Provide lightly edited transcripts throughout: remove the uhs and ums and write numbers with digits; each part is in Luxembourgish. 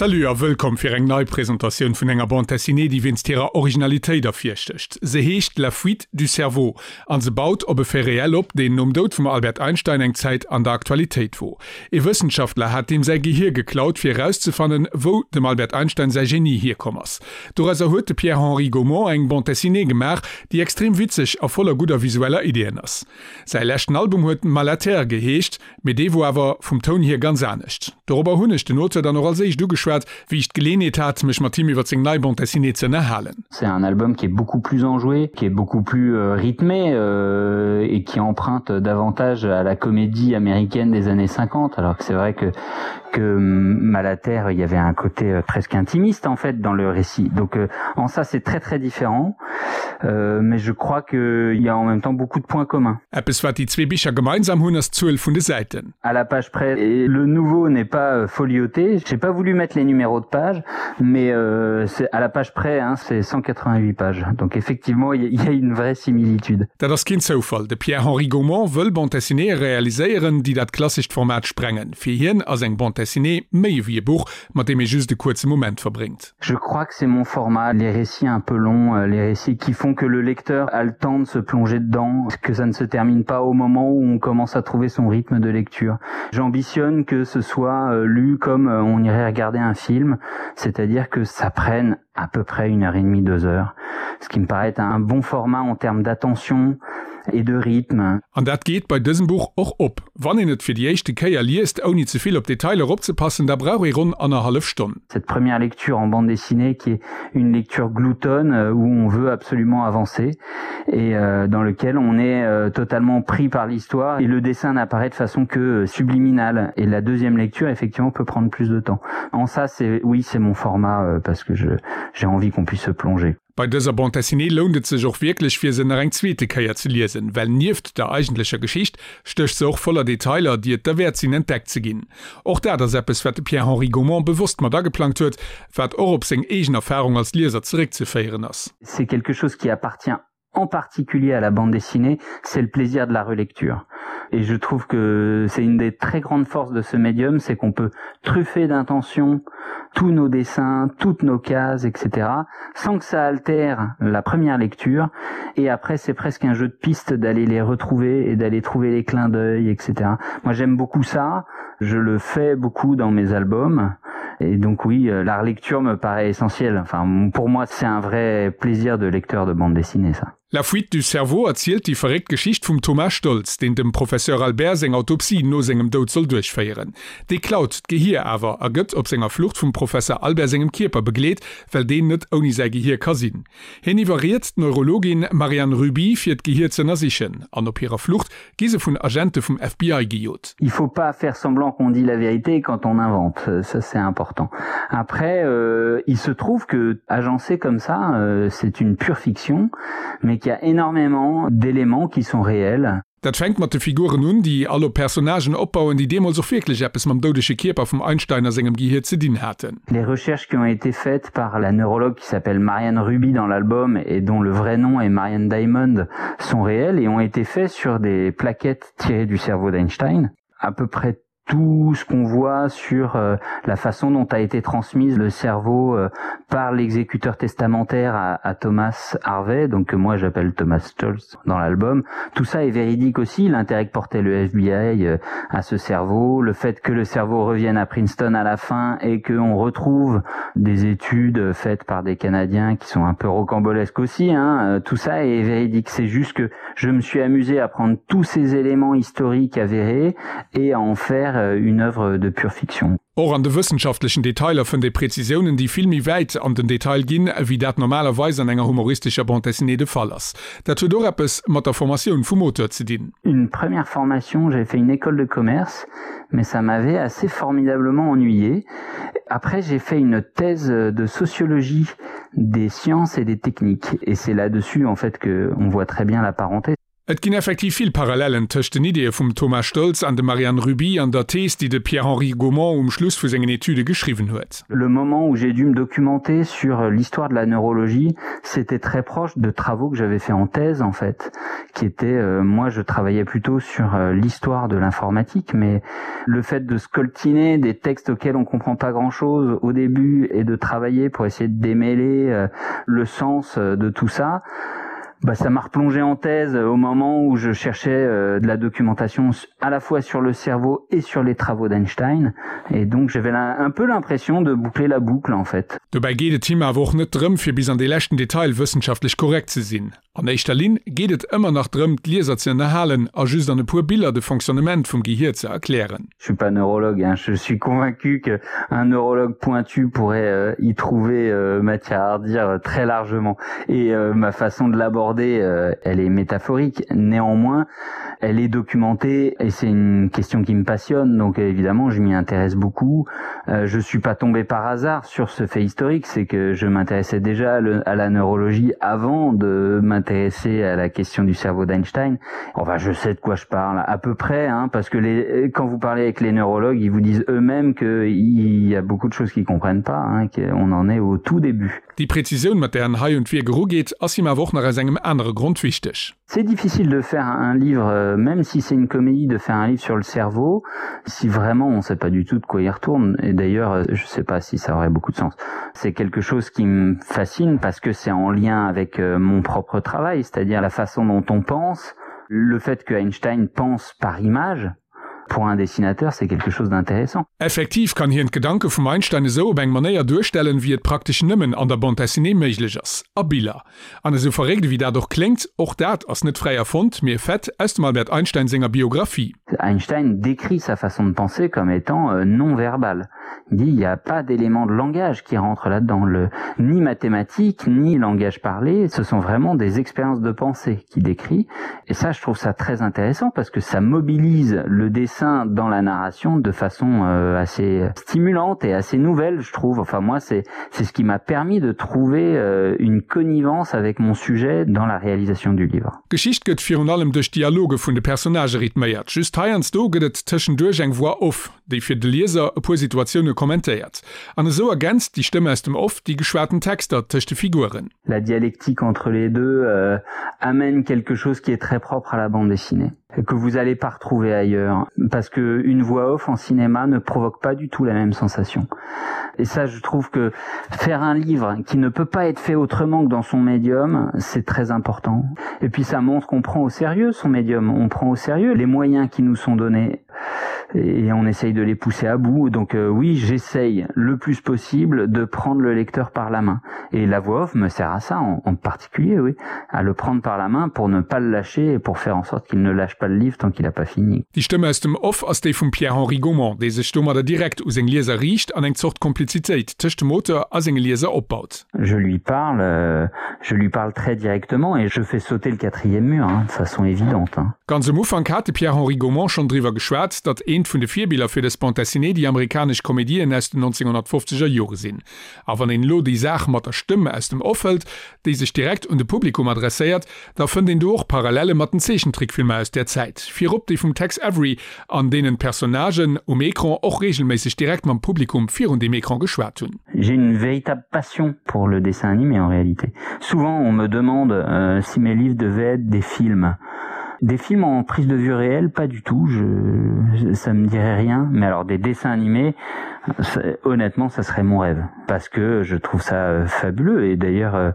Salut a wëllkomm fir eng nei Presentatioun vun enger Bande Dessinée, déi wéinst hirer Originalitéit ervirstécht. Se heescht La fuite du cerveau an se baut op e Fait réel op, deen nom Doud vum Albert Einstein eng Zäit an der Aktualitéit wor. Ee Wëssenschaftler hat deem säi Gehier geklaut, fir erauszefannen, wou dem Albert Einstein säi Genie hierkomm ass. Dorauser huet de Pierre-Henri Gaumont eng Bande Dessinée gemaach, déi extrem witzeg a voller gudder visueller Ideeën ass. Säi leschten Album huet Malaterre geheescht, mee dee wor awer vum Toun hier ganz anescht. Dorobber hunn ech den Auteur dann och als éischt ugeschwat, wéi ech d'Geleenheet hat, mech mat him iwwer seng nei Bande Dessinée ze ënnerhalen. C'est un album qui est beaucoup plus enjoué, qui est beaucoup plus rythmé et qui emprunte davantage à la comédie américaine des années 50 alors que c'est vrai que que Malaterre il y avait un côté presque intimiste en fait dans le récit. Donc en ça c'est très très différent mais je crois qu'il y a en même temps beaucoup de points communs. Eppes wat déi zwee Bicher gemeinsam hunn ass d'Zuel vun de Säiten. À la page près et le nouveau n'est pas folioté. J'ai pas voulu mettre les numéros de page mais c'est à la page près hein, c'est 188 pages. Donc effectivement il y a une vraie similitude. Dat ass keen Zoufall, de Pierre-Henri Gaumont wëll Bande Dessinéeë realiséieren, déi dat klassescht Format sprengen. Fir hien ass eng Bande Dessinée méi ewéi e Buch, mat deem ee just e kuerze Moment verbréngt. Je crois que c'est mon format, les récits un peu longs, les récits qui font que le lecteur a le temps de se plonger dedans, que ça ne se termine pas au moment où on commence à trouver son rythme de lecture. J'ambitionne que ce soit lu comme on irait regarder un film, c'est-à-dire que ça prenne à peu près une heure et demie, deux heures, ce qui me paraît un bon format en termes d'attention et de rythme. An dat geet bei dësem Buch och op. Wann een et fir déi éischte Kéier liest, ouni ze vill op Detailer opzepassen, da brauch ee ronn annerhallef Stonn. Cette première lecture en bande dessinée qui est une lecture gloutonne où on veut absolument avancer et dans lequel on est totalement pris par l'histoire et le dessin n'apparaît de façon que subliminale et la deuxième lecture effectivement peut prendre plus de temps. En ça c'est oui c'est mon format parce que je j'ai envie qu'on puisse se plonger. Bei dëser Bande Dessinée lount et sech och wierklech fir se nach eng zweete Kéier ze liesen, well nieft der eigentlecher Geschicht stécht se och voller Detailer, déi et derwäert sinn entdeckt ze ginn. Och dat ass eppes wat de Pierre-Henri Gaumont bewosst mat ageplangt huet, wat och op seng eegen Erfarung als Lieser zeréckzeféieren ass. C'est quelque chose qui appartient en particulier à la bande dessinée, c'est le plaisir de la relecture. Et je trouve que c'est une des très grandes forces de ce médium, c'est qu'on peut truffer d'intention tous nos dessins, toutes nos cases, etc., sans que ça altère la première lecture. Et après, c'est presque un jeu de piste d'aller les retrouver et d'aller trouver les clins d'œil, etc. Moi, j'aime beaucoup ça. Je le fais beaucoup dans mes albums. Et donc oui, la relecture me paraît essentielle. Enfin, pour moi, c'est un vrai plaisir de lecteur de bande dessinée, ça. La fuite du cerveau erzielt déi verréckt Geschicht vum Thomas Stoltz, deen dem Professeur Albert seng Autopsie no sengem Doud soll duerchféieren. Dee klaut d'Gehier awer a gëtt op senger Flucht vum Professer Albert sengem Kierper begleet, well deen net ouni säi Gehier ka sinn. Hien iwwerriet d'Neurologin Marianne Ruby fir d'Gehier z'ënnersichen an op hirer Flucht gi se vun Agente vum FBI gejot. Il faut pas faire semblant qu'on dit la vérité quand on invente, ça c'est important. Après euh, il se trouve que agencé comme ça, euh, c'est une pure fiction, mais qu'il y a énormément d'éléments qui sont réels. Dat fänkt mat de Figuren un, déi all op Personnagen opbauen, déi deemools och wierklech eppes mam doudege Kierper vum Einstein a sengem Gehier ze dinn haten. Les recherches qui ont été faites par la neurologue qui s'appelle Marianne Ruby dans l'album et dont le vrai nom est Marianne Diamond sont réelles et ont été faites sur des plaquettes tirées du cerveau d'Einstein. À peu près tout ce qu'on voit sur euh, la façon dont a été transmise le cerveau euh, par l'exécuteur testamentaire à, à Thomas Harvey, donc que moi j'appelle Thomas Stolz dans l'album. Tout ça est véridique aussi, l'intérêt que portait le FBI euh, à ce cerveau, le fait que le cerveau revienne à Princeton à la fin et qu'on retrouve des études faites par des Canadiens qui sont un peu rocambolesques aussi, hein, tout ça est véridique. C'est juste que je me suis amusé à prendre tous ces éléments historiques avérés et à en faire une œuvre de pure fiction. Och an de wëssenschaftlechen Detailer fënnt ee Präzisiounen, déi vill méi wäit an den Detail ginn, wéi dat normalerweis an enger humoristescher Bande dessinée de Fall ass. Dat huet och eppes mat der Formatioun vum Auteur ze dinn. Une première formation, j'avais fait une école de commerce, mais ça m'avait assez formidablement ennuyé. Après, j'ai fait une thèse de sociologie des sciences et des techniques et c'est là-dessus en fait que on voit très bien la parenté. Et ginn effektiv vill Parallellen tëscht den Ideeë vum Thomas Stoltz an dem Marianne Ruby an der Thees, déi de Pierre-Henri Gaumont um Schluss vu sengen Etüde geschriwwen huet. Le moment où j'ai dû me documenter sur l'histoire de la neurologie, c'était très proche de travaux que j'avais fait en thèse en fait, qui étaient euh, moi je travaillais plutôt sur euh, l'histoire de l'informatique, mais le fait de scoltiner des textes auxquels on comprend pas grand-chose au début et de travailler pour essayer de démêler euh, le sens euh, de tout ça, bah, ça m'a replongé en thèse au moment où je cherchais euh, de la documentation à la fois sur le cerveau et sur les travaux d'Einstein et donc j'avais un peu l'impression de boucler la boucle en fait. Dobäi geet et him awer och net drëm, fir bis an dee leschten Detail wëssenschaftlech korrekt ze sinn. An éischter Linn geet et ëmmer nach drëm, d'Lieser ze ënnerhalen a just an e puer Biller de Fonctionnement vum Gehier ze erklären. Je suis pas neurologue hein, je suis convaincu que un neurologue pointu pourrait euh, y trouver euh, matière à redire euh, très largement et euh, ma façon de l'aborder euh, elle est métaphorique néanmoins elle est documentée et c'est une question qui me passionne donc évidemment je m'y intéresse beaucoup euh, je suis pas tombé par hasard sur ce fait historique c'est que je m'intéressais déjà à, le, à la neurologie avant de m'intéresser à la question du cerveau d'Einstein enfin je sais de quoi je parle à peu près hein, parce que les quand vous parlez avec les neurologues ils vous disent eux-mêmes que il y a beaucoup de choses qu'ils comprennent pas hein, qu'on en est au tout début. Déi Präzisioun, mat där en hei un d'Wierk erugeet, ass him awer och nach aus engem anere Grond wichteg. C'est difficile de faire un livre, euh, même si c'est une comédie, de faire un livre sur le cerveau, si vraiment on sait pas du tout de quoi il retourne. Et d'ailleurs, euh, je sais pas si ça aurait beaucoup de sens. C'est quelque chose qui me fascine parce que c'est en lien avec euh, mon propre travail, c'est-à-dire la façon dont on pense, le fait que Einstein pense par image, pour un dessinateur, c'est quelque chose d'intéressant. Effektiv kann hien d'Gedanke vum Einstein esou op eng Manéier duerstellen, wéi et praktesch nëmmen an der Bande dessinée méiglech ass, a Biller. An esou verréckt ewéi dat och kléngt, och dat ass net fräi erfonnt, mee e Fait aus dem Albert Einstein senger Biographie. Einstein décrit sa façon de penser comme étant euh, non verbale. Il dit il n'y a pas d'élément de langage qui rentre là-dedans, le ni mathématique ni langage parlé, ce sont vraiment des expériences de pensée qu'il décrit. Et ça, je trouve ça très intéressant parce que ça mobilise le dessin dans la narration de façon euh, assez stimulante et assez nouvelle, je trouve. Enfin moi, c'est c'est ce qui m'a permis de trouver euh, une connivence avec mon sujet dans la réalisation du livre. D'Geschicht gëtt virun allem duerch d'Dialoge vun de Personnagë rythméiert. Just heiansdo gëtt et tëschenduerch eng Voix off, déi fir de Lieser e puer Situatioune kommentéiert. An esou ergänzt déi Stëmm aus dem Off déi geschwaten Texter tëscht de Figuren. La dialectique entre les deux euh, amène quelque chose qui est très propre à la bande dessinée que vous allez pas retrouver ailleurs parce que une voix off en cinéma ne provoque pas du tout la même sensation. Et ça je trouve que faire un livre qui ne peut pas être fait autrement que dans son médium, c'est très important. Et puis ça montre qu'on prend au sérieux son médium, on prend au sérieux les moyens qui nous sont donnés et on essaye de les pousser à bout. Donc euh, oui, j'essaye le plus possible de prendre le lecteur par la main. Et la voix off me sert à ça en, en particulier, oui, à le prendre par la main pour ne pas le lâcher et pour faire en sorte qu'il ne lâche pas le livre tant qu'il n'a pas fini. Déi Stëmm aus dem Off ass déi vum Pierre-Henri Gaumont, dee sech domadder direkt u seng Lieser riicht an eng Zort Komplizitéit tëscht dem Auteur a senge Lieser opbaut. Je lui parle, euh, je lui parle très directement et je fais sauter le quatrième mur hein, de façon évidente. Hein. Ganz um Ufank hat de Pierre-Henri Gaumont schonn driwwer geschwat, datt eent vun de Virbiller fir dës Bande dessinée déi amerikanesch Komedien aus den 1950er Jore sinn. A wann een elo déi Saach mat der Stëmm aus dem Off hëlt, déi sech direkt un de Publikum adresséiert, da fënnt een do och Parallelle mat den Zeechentrickfilmer aus där Zäit, virop déi vum Tex Avery, an deenen d'Personnagen um Ecran och reegelméisseg direkt mam Publikum virun deem Ecran geschwat hunn. J'ai une véritable passion pour le dessin animé en réalité. Souvent on me demande euh, si mes livres devaient être des films. Des films en prise de vue réelle, pas du tout, je, ça me dirait rien, mais alors des dessins animés, honnêtement ça serait mon rêve parce que je trouve ça euh, fabuleux et d'ailleurs euh,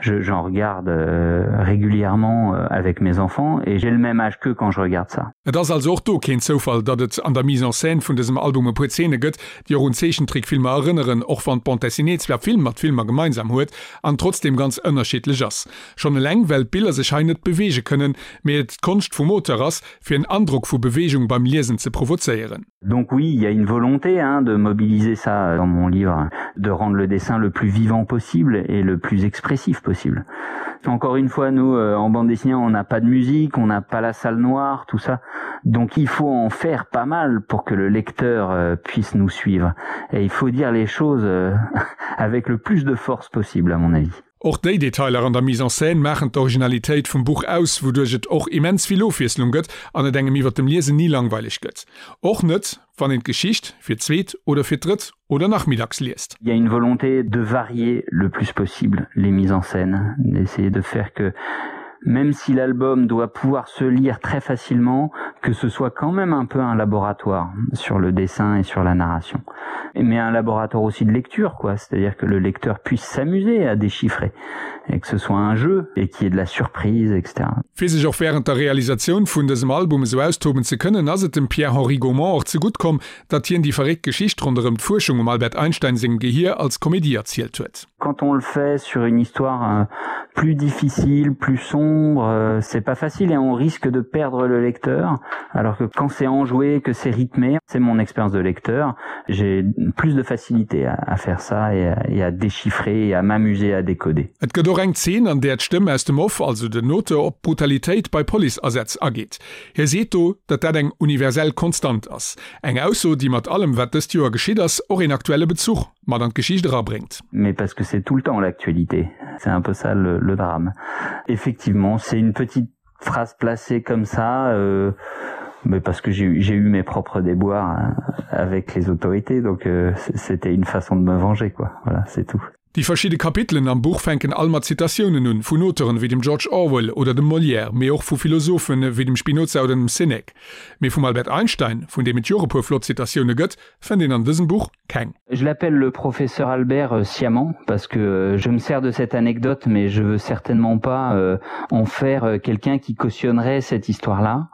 j'en regarde euh, régulièrement avec mes enfants et j'ai le même âge que quand je regarde ça. Et ass also och do keen Zoufall, datt et an der Mise en scène vun dësem Album e puer Zeene gëtt, déi och un Zeechentrickfilmer erënneren, och wann d'Bande dessinée zwar vill mat Filmer gemeinsam huet an trotzdeem ganz ënnerschiddlech ass. Schonn eleng well d'Biller sech hei net beweege kënnen, mee et d'Konscht vum Auteur ass, fir en Androck vu Beweegung beim Liesen ze provozéieren. Donc oui, il y a une volonté hein, de mobiliser ça dans mon livre, de rendre le dessin le plus vivant possible et le plus expressif possible. Encore une fois, nous euh, en bande dessinée, on n'a pas de musique, on n'a pas la salle noire, tout ça. Donc il faut en faire pas mal pour que le lecteur euh, puisse nous suivre. Et il faut dire les choses euh, avec le plus de force possible à mon avis. Och déi Detailer an der Mise en scène maachen d'Originalitéit vum Buch aus, wouduerch et och immens vill Ofwiesslung gëtt an et engem iwwer dem Liesen ni langweileg gëtt. Och net, wann een d'Geschicht fir d'zweet oder fir d'drëtt oder nach méi dacks liest. Il y a une volonté de varier le plus possible les mises en scène, d'essayer de faire que même si l'album doit pouvoir se lire très facilement, que ce soit quand même un peu un laboratoire sur le dessin et sur la narration. Mais un laboratoire aussi de lecture quoi, c'est-à-dire que le lecteur puisse s'amuser à déchiffrer et que ce soit un jeu et qu'il y ait de la surprise etc. Fir sech och wärend der Realisatioun vun dësem Album esou austoben ze kënnen, ass et dem Pierre-Henri Gaumont och zegutt komm, datt hien déi verréckt Geschicht ronderëm d'Fuerschung um Albert Einstein sengem Gehier als Komedie erzielt huet. Quand on le fait sur une histoire euh, plus difficile, plus sombre, euh, c'est pas facile et on risque de perdre le lecteur, alors que quand c'est enjoué, que c'est rythmé, c'est mon expérience de lecteur, j'ai plus de facilité à, à faire ça et à, et à déchiffrer et à m'amuser à décoder. Et gëtt och eng Zeen, an där d'Stëmm aus dem Off, also den Auteur, op d'Brutalitéit bei Policeasätz ageet. Hie seet do, datt dat eng universell Konstant ass. Eng Ausso, déi mat allem, wat dëst Joer geschitt ass, och een aktuelle Bezuch mat an d'Geschicht erabréngt. Mais parce que c'est tout le temps l'actualité, c'est un peu ça le, le drame. Effectivement, c'est une petite phrase placée comme ça, euh, mais parce que j'ai eu mes propres déboires avec les autorités, donc euh, c'était une façon de me venger quoi. Voilà, c'est tout. Déi verschidde Kapitelen am Buch fänken all mat Zitatiounen un, vun Auteuren wéi dem George Orwell oder dem Molière, mee och vu Philosophen wéi dem Spinoza oder dem Sinek. Mee vum Albert Einstein, vun deem et jo och e puer flott Zitatioune gëtt, fënnt een an dësem Buch keng. Je l'appelle le professeur Albert euh, sciemment parce que euh, je me sers de cette anecdote mais je veux certainement pas euh, en faire euh, quelqu'un qui cautionnerait cette histoire là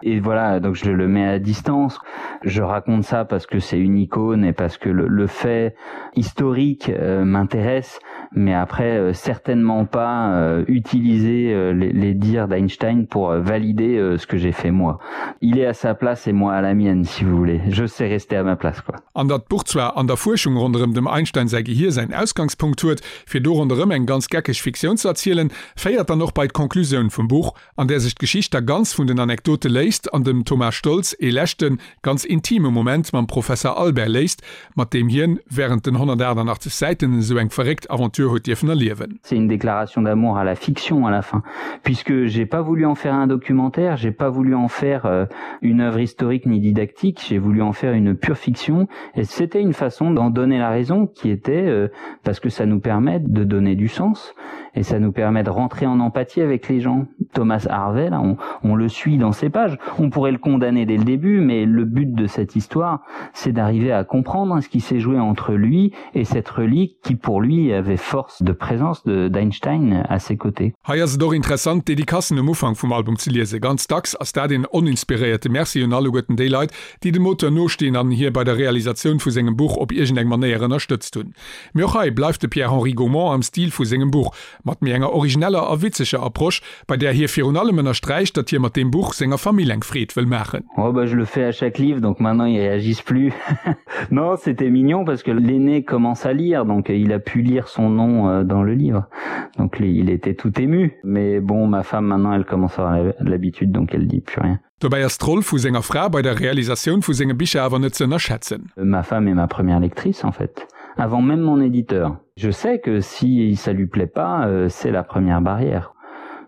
et voilà donc je le mets à distance je raconte ça parce que c'est une icône et parce que le, le fait historique euh, m'intéresse mais après euh, certainement pas euh, utiliser euh, les, les dires d'Einstein pour euh, valider euh, ce que j'ai fait moi il est à sa place et moi à la mienne si vous voulez je sais rester à ma place quoi An datt d'Buch zwar an der Fuerschung ronderëm dem Einstein säi Gehier säin Ausgangspunkt huet, fir do ronderëm eng ganz geckeg Fiktioun ze erzielen, féiert dann och bei d'Conclusioun vum Buch, an där sech d'Geschicht da ganz vun den Anekdote léisst an dem Thomas Stoltz ee leschten, ganz intime Moment mam Professer Albert léisst, mat deem hien wärend den 188 Säiten esou eng verréckt Aventure huet dierfen erliewen. C'est une déclaration d'amour à la fiction à la fin, puisque j'ai pas voulu en faire un documentaire, j'ai pas voulu en faire euh, une œuvre historique ni didactique, j'ai voulu en faire une pure fiction et c'était une façon d'en donner la raison qui était euh, parce que ça nous permet de donner du sens et ça nous permet de rentrer en empathie avec les gens. Thomas Harvey, là, on, on le suit dans ses pages. On pourrait le condamner dès le début, mais le but de cette histoire, c'est d'arriver à comprendre ce qui s'est joué entre lui et cette relique qui pour lui avait force de présence d'Einstein à ses côtés. Hei ass et och interessant d'Dedicacen um Ufank vum Album ze liesen. Ganz dacks ass dat een oninspiréierte Merci un alleguerten déi Leit, déi dem Auteur nostinn an hie bei der Realisatioun vu sengem Buch op iergendeng Manéier ënnerstëtzt hunn. Mee och hei bleift de Pierre-Henri Gaumont am Stil vu sengem Buch, mat méi enger origineller a witzeger Approche, bei där hie virun allem ënnersträicht, datt hie mat deem Buch senger Famill eng Freed wëll maachen. Oh bah je le fais à chaque livre donc maintenant ils réagissent plus. Non c'était mignon parce que l'aîné commence à lire donc il a pu lire son nom euh, dans le livre donc il était tout ému mais bon ma femme maintenant elle commence à avoir l'habitude donc elle dit plus rien. Dobäi ass d'Roll vu senger Fra bei der Realisatioun vu senge Bicher awer net ze ënnerschätzen. Ma femme est ma première lectrice en fait, avant même mon éditeur. Je sais que si ça lui plaît pas, euh, c'est la première barrière.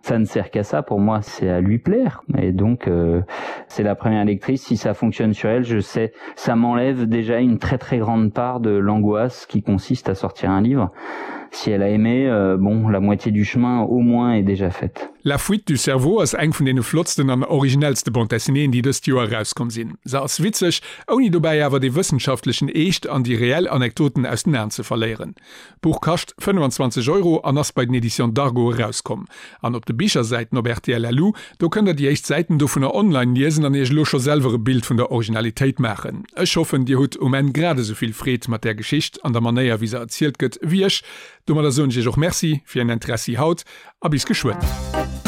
Ça ne sert qu'à ça pour moi, c'est à lui plaire. Et donc euh, c'est la première lectrice, si ça fonctionne sur elle, je sais, ça m'enlève déjà une très très grande part de l'angoisse qui consiste à sortir un livre. Si elle a aimé, euh, bon, la moitié du chemin au moins est déjà faite. La fuite du cerveau ass eng vun deene flottsten an originellste Bande Dessinéeën, déi dëst Joer erauskomm sinn. Se ass witzeg, ouni dobäi awer dee wëssenschaftlechen Eescht an déi reell Anekdoten aus den Aen ze verléieren. D'Buch kascht 25 Euro an ass bei den Editions Dargo erauskomm. An op de Bichersäiten op rtl.lu, do kënnt der déi éischt Säiten dovunner online liesen an iech elo scho selwer e Bild vun der Originalitéit maachen. Ech hoffen, dir hutt um Enn grad esou vill Freed mat där Geschicht an der Manéier wéi se erzielt gëtt, wéi ech. Domadder soen ech iech och Merci fir ären Interessi haut a bis geschwënn.